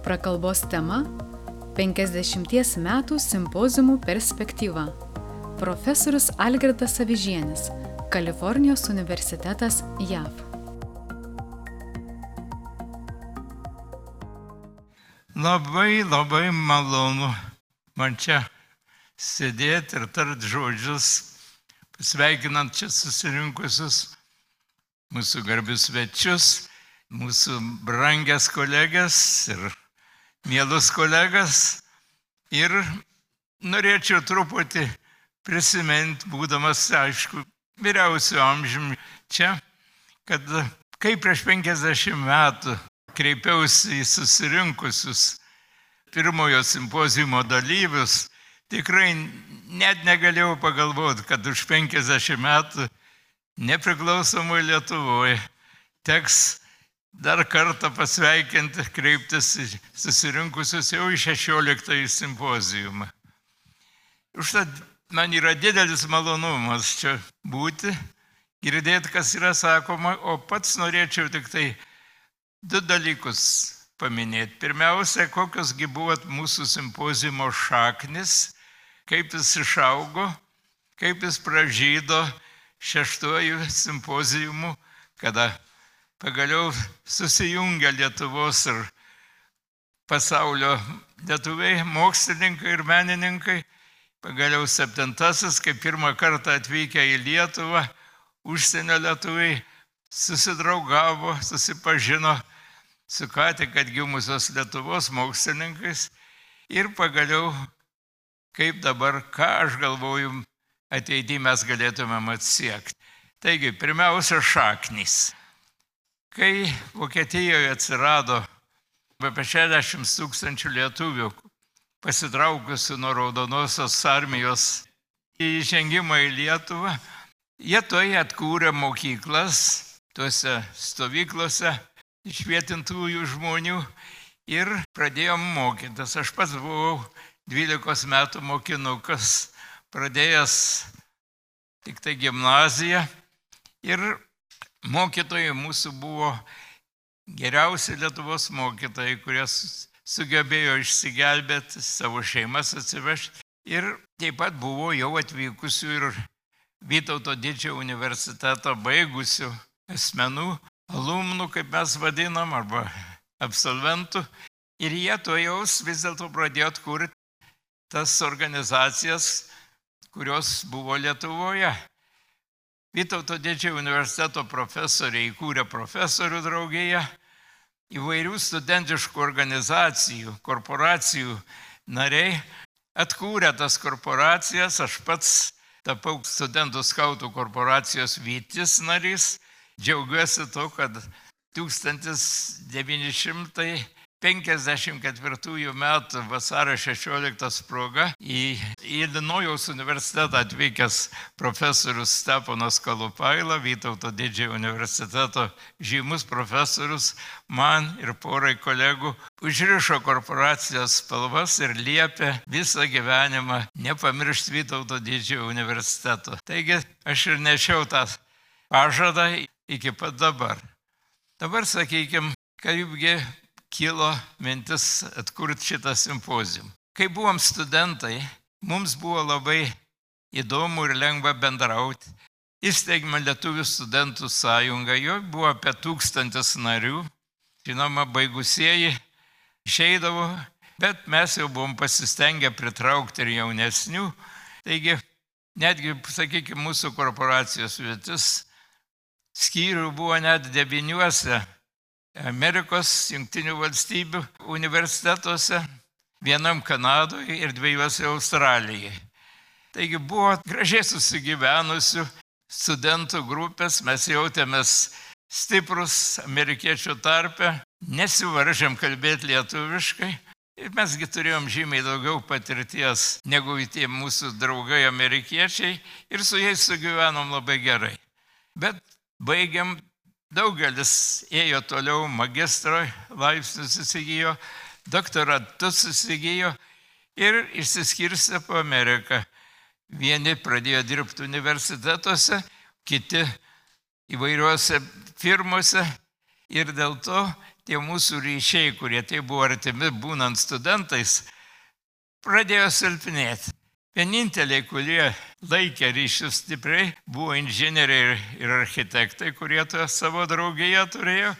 Prakalbos tema – 50 metų simpoziumų perspektyva. Profesorius Algirdas Avižienis, Kalifornijos universitetas, JAV. Labai malonu man čia sėdėti ir tart žodžius, pasveikinant čia susirinkusius mūsų garbius svečius, mūsų brangias kolegas ir mielus kolegas. Ir norėčiau truputį prisiminti, būdamas, aišku, vyriausio amžiumi čia, kad kai prieš 50 metų kreipiausi į susirinkusius pirmojo simpoziumo dalyvius, tikrai net negalėjau pagalvoti, kad už 50 metų nepriklausomoje Lietuvoje teks dar kartą pasveikinti, kreiptis į susirinkusius jau į 16 simpoziumą. Užtat man yra didelis malonumas čia būti, girdėti, kas yra sakoma, o pats norėčiau tik tai 2 dalykus paminėti. Pirmiausia, kokiosgi buvo mūsų simpoziumo šaknis, kaip jis išaugo, kaip jis pražydo 6 simpoziumu, kada pagaliau susijungia Lietuvos ir pasaulio lietuviai, mokslininkai ir menininkai. Pagaliau 7, kai pirmą kartą atvykę į Lietuvą, užsienio lietuviai susidraugavo, susipažino su ką tik atgimusios Lietuvos mokslininkais. Ir pagaliau, kaip dabar, ką aš galvoju, ateityje mes galėtumėm atsiekti. Taigi, pirmiausia, šaknys. Kai Vokietijoje atsirado apie 60 000 lietuvių pasitraukusių nuo Raudonosios armijos įžengimą į Lietuvą, jie toje atkūrė mokyklas, tuose stovyklose išvietintųjų žmonių ir pradėjom mokytis. Aš pats buvau 12 metų mokinukas, pradėjęs tik tai gimnaziją ir mokytojai mūsų buvo geriausi Lietuvos mokytojai, kurie sugebėjo išsigelbėti, savo šeimas atsivežti. Ir taip pat buvo jau atvykusių ir Vytauto Didžiojo universiteto baigusių asmenų, alumnų, kaip mes vadinam, arba absolventų. Ir jie to jaus vis dėlto pradėjo atkurti tas organizacijas, kurios buvo Lietuvoje. Vytauto Didžiojo universiteto profesoriai įkūrė profesorių draugiją, įvairių studentiškų organizacijų, korporacijų nariai atkūrė tas korporacijas. Aš pats tapau studentų skautų korporacijos Vytis narys. Džiaugiuosi to, kad 1954 metų vasario 16 proga į Ilinojaus universitetą atvykęs profesorius Steponas Kalupaila, Vytauto Didžiojo universiteto žymus profesorius, man ir porai kolegų užrišo korporacijos spalvas ir liepė visą gyvenimą nepamiršti Vytauto Didžiojo universiteto. Taigi aš ir nešiau tą pažadą iki pat dabar. Dabar sakykime, kaipgi kilo mintis atkurti šitą simpoziumą. Kai buvom studentai, mums buvo labai įdomu ir lengva bendrauti. Įsteigėme Lietuvių studentų sąjungą, jo buvo apie 1000 narių. Žinoma, baigusieji išeidavo, bet mes jau buvom pasistengę pritraukti ir jaunesnių. Taigi, netgi, sakykime, mūsų korporacijos vietis skyrių buvo net 9 Amerikos Jungtinių valstybių universitetuose, 1 Kanadoje ir 2 Australijai. Taigi buvo gražiai susigyvenusių studentų grupės, mes jautėmės stiprus amerikiečių tarpe, nesivaržėm kalbėti lietuviškai ir mesgi turėjom žymiai daugiau patirties negu tie mūsų draugai amerikiečiai ir su jais sugyvenom labai gerai. Bet baigiam. Daugelis ėjo toliau, magistro laipsnius įsigijo, doktoratus įsigijo ir išsiskirstė po Ameriką. Vieni pradėjo dirbti universitetuose, kiti įvairiuose firmose Ir dėl to tie mūsų ryšiai, kurie tai buvo artimi būnant studentais, pradėjo silpnėti. Vieninteliai, kurie laikė ryšius stipriai, buvo inžinieriai ir architektai, kurie savo draugiją turėjo,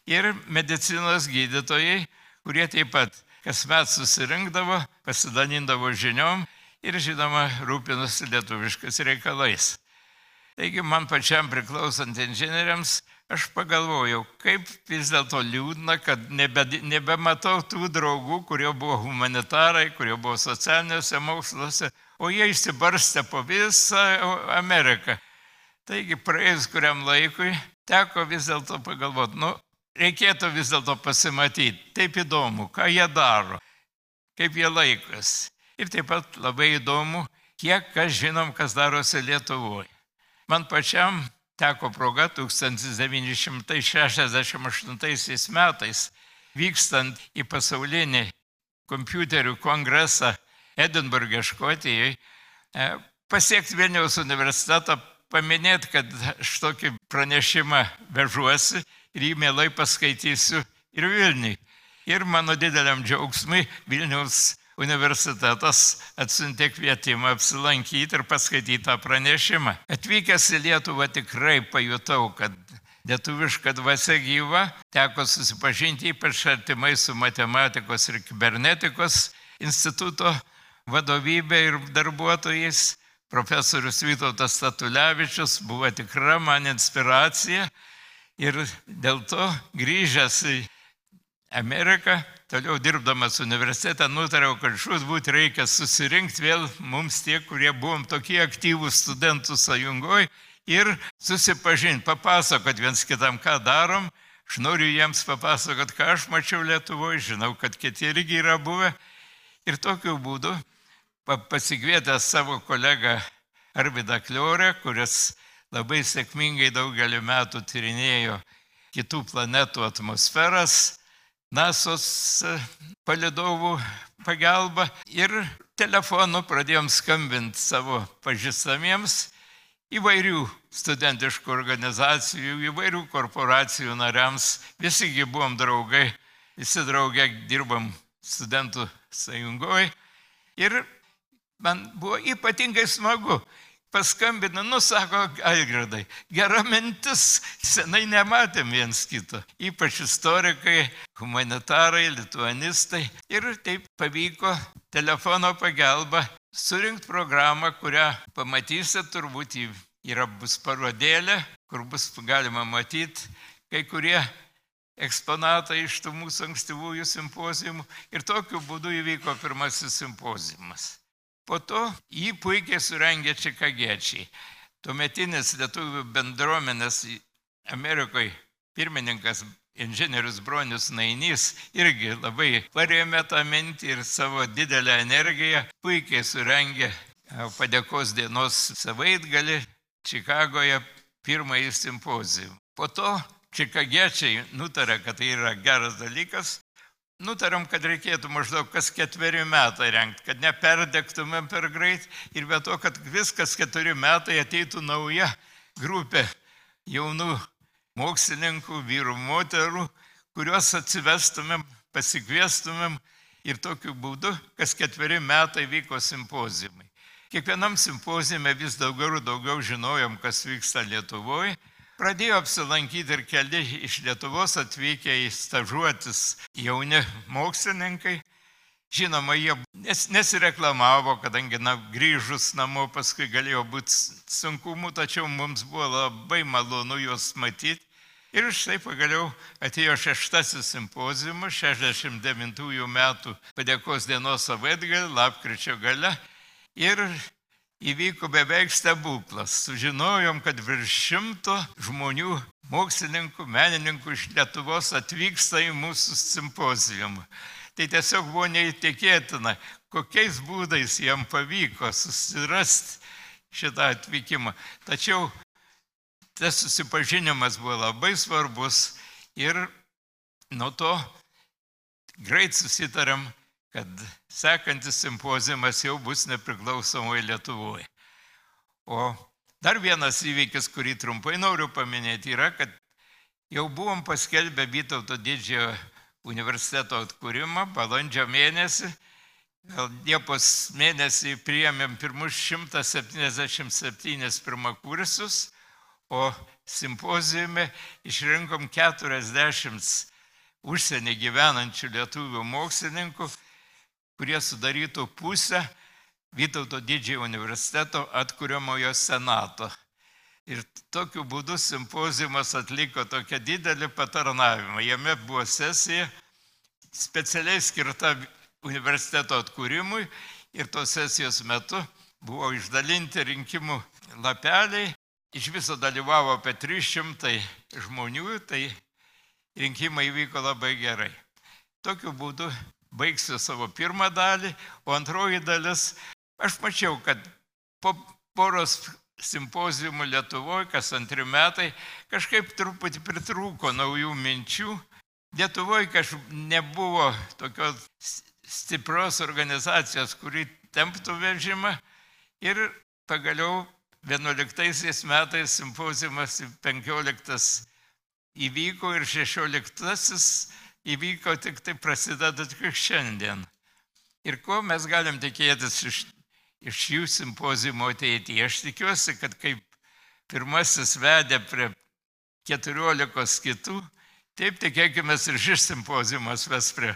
ir medicinos gydytojai, kurie taip pat kasmet susirinkdavo, pasidalindavo žiniom ir, žinoma, rūpinosi lietuviškais reikalais. Taigi man pačiam priklausant inžinieriams, aš pagalvojau, kaip vis dėlto liūdna, kad nebematau tų draugų, kurie buvo humanitarai, kurie buvo socialiniuose moksluose, o jie išsibarstė po visą Ameriką. Taigi praėjus kuriam laikui teko vis dėlto pagalvoti, reikėtų vis dėlto pasimatyti, taip įdomu, ką jie daro, kaip jie laikosi. Ir taip pat labai įdomu, kiek kas žinom, kas darosi Lietuvoje. Man pačiam teko proga 1968 metais, vykstant į pasaulinį kompiuterių kongresą Edinburge, Škotijoje, pasiekti Vilniaus universitetą, paminėti, kad aš tokį pranešimą vežuosi ir jį mielai paskaitysiu ir Vilniui. Ir mano dideliam džiaugsmui Vilniaus universitetas atsiuntė kvietimą apsilankyti ir paskaityti tą pranešimą. Atvykęs į Lietuvą tikrai pajutau, kad lietuviška dvasia gyva, teko susipažinti ypač artimai su matematikos ir kibernetikos instituto vadovybė ir darbuotojais. Profesorius Vytautas Statulevičius buvo tikra man inspiracija ir dėl to grįžęs į Ameriką, toliau dirbdamas universitete, nutariau, kad žūtbūt reikia susirinkti vėl mums tie, kurie buvom tokie aktyvūs studentų sąjungoje ir susipažinti, papasakot viens kitam, ką darom. Aš noriu jiems papasakot, ką aš mačiau Lietuvoje, žinau, kad kiti irgi yra buvę. Ir tokiu būdu pasikvietęs savo kolegą Arvydą Kliorę, kuris labai sėkmingai daugelį metų tyrinėjo kitų planetų atmosferas, NASO's palydovų pagalba, ir telefonu pradėjom skambinti savo pažįstamiems įvairių studentiškų organizacijų, įvairių korporacijų nariams. Visigi buvom draugai, visi drauge dirbam studentų sąjungoje. Ir man buvo ypatingai smagu. Paskambina, sako Algirdai, gera mintis, senai nematėm viens kito. Ypač istorikai, humanitarai, lituanistai. Ir taip pavyko telefono pagalba surinkti programą, kurią pamatysit, turbūt bus parodėlė, kur bus galima matyti kai kurie eksponatai iš tų mūsų ankstyvųjų simpozijumų. Ir tokiu būdu įvyko pirmasis simpozijumas. Po to jį puikiai surengė čikagiečiai. Tuometinis lietuvių bendruomenės Amerikoje pirmininkas inžinierius Bronius Nainys irgi labai parėmė tą mintį ir savo didelę energiją puikiai surengė padėkos dienos savaitgalį Čikagoje pirmąjį simpozijų. Po to čikagiečiai nutarė, kad tai yra geras dalykas. Nutarėm, kad reikėtų maždaug kas 4 metai rengti, kad neperdegtumėm per greit ir be to, kad viskas 4 metai ateitų nauja grupė jaunų mokslininkų, vyrų, moterų, kuriuos atsivestumėm, pasikviestumėm ir tokiu būdu kas 4 metai vyko simpozijumai. Kiekvienam simpozijume vis daugiau ir daugiau žinojom, kas vyksta Lietuvoje. Pradėjo apsilankyti ir keli iš Lietuvos atvykę į stažuotis jauni mokslininkai. Žinoma, jie nesireklamavo, kadangi grįžus namo paskui galėjo būti sunkumų, tačiau mums buvo labai malonu juos matyti. Ir štai pagaliau atėjo 6. simpozijumas 69 metų padėkos dienos savaitgalį, lapkričio gale. Ir įvyko beveik stebuklas. Sužinojom, kad virš 100 žmonių, mokslininkų, menininkų iš Lietuvos atvyksta į mūsų simpozijumą. Tai tiesiog buvo neįtikėtina, kokiais būdais jam pavyko susirasti šitą atvykimą. Tačiau tas susipažinimas buvo labai svarbus ir nuo to greit susitarėm, kad sekantis simpozijumas jau bus nepriklausomoje Lietuvoje. O dar vienas įvykis, kurį trumpai noriu paminėti, yra, kad Jau buvom paskelbę Vytauto didžiojo universiteto atkūrimą balandžio mėnesį. Liepos mėnesį priėmėm pirmus 177 pirmakursius, o simpozijume išrinkom 40 užsienį gyvenančių lietuvių mokslininkų, kurie sudarytų pusę Vytauto didžiojo universiteto atkuriamojo senato. Ir tokiu būdu simpozijumas atliko tokią didelį patarnavimą. Jame buvo sesija specialiai skirta universiteto atkūrimui ir tos sesijos metu buvo išdalinti rinkimų lapeliai. Iš viso dalyvavo apie 300 žmonių, tai rinkimai vyko labai gerai. Tokiu būdu baigsiu savo pirmą dalį, o antroji dalis, aš mačiau, kad po poros simpozijumų Lietuvoje, kas 2 metai, kažkaip truputį pritrūko naujų minčių. Lietuvoje kažkaip nebuvo tokios stiprios organizacijos, kuri temptų vežimą. Ir pagaliau 11 metais simpozijumas 15 įvyko ir 16 įvyko tik tai prasideda tik šiandien. Ir ko mes galim tikėtis iš jų simpozijumų ateityje? Aš tikiuosi, kad kaip pirmasis vedė prie 14 kitų, taip tikėkime ir šis simpozijumas ves prie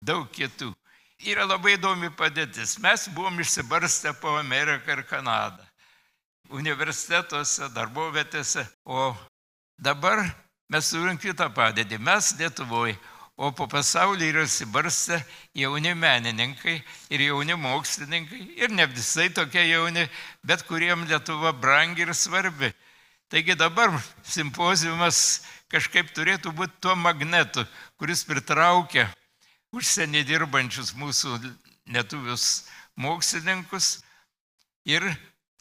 daug kitų. Yra labai įdomi padėtis. Mes buvom išsibarstę po Ameriką ir Kanadą, universitetuose, darbovietėse, o dabar mes turim kitą padėtį. Mes Lietuvoje, o po pasaulį yra išsibarstę jauni menininkai ir jauni mokslininkai, ir ne visai tokie jauni, bet kuriem Lietuva brangi ir svarbi. Taigi dabar simpozijumas kažkaip turėtų būti tuo magnetu, kuris pritraukia užsienį dirbančius mūsų lietuvius mokslininkus ir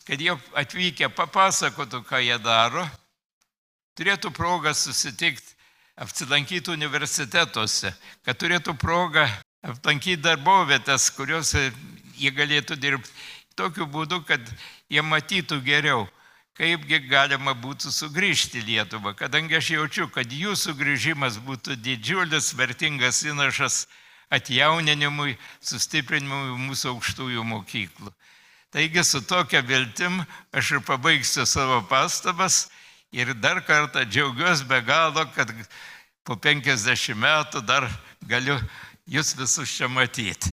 kad jie atvykę papasakotų, ką jie daro, turėtų progą susitikti, apsilankyti universitetuose, kad turėtų progą aplankyti darbovietės, kuriuose jie galėtų dirbti tokiu būdu, kad jie matytų geriau, kaipgi galima būtų sugrįžti į Lietuvą, kadangi aš jaučiu, kad jų sugrįžimas būtų didžiulis, vertingas įnašas atjauninimui, sustiprinimui mūsų aukštųjų mokyklų. Taigi su tokia viltim aš ir pabaigsiu savo pastabas ir dar kartą džiaugiuosi be galo, kad po 50 metų dar galiu jūs visus čia matyti.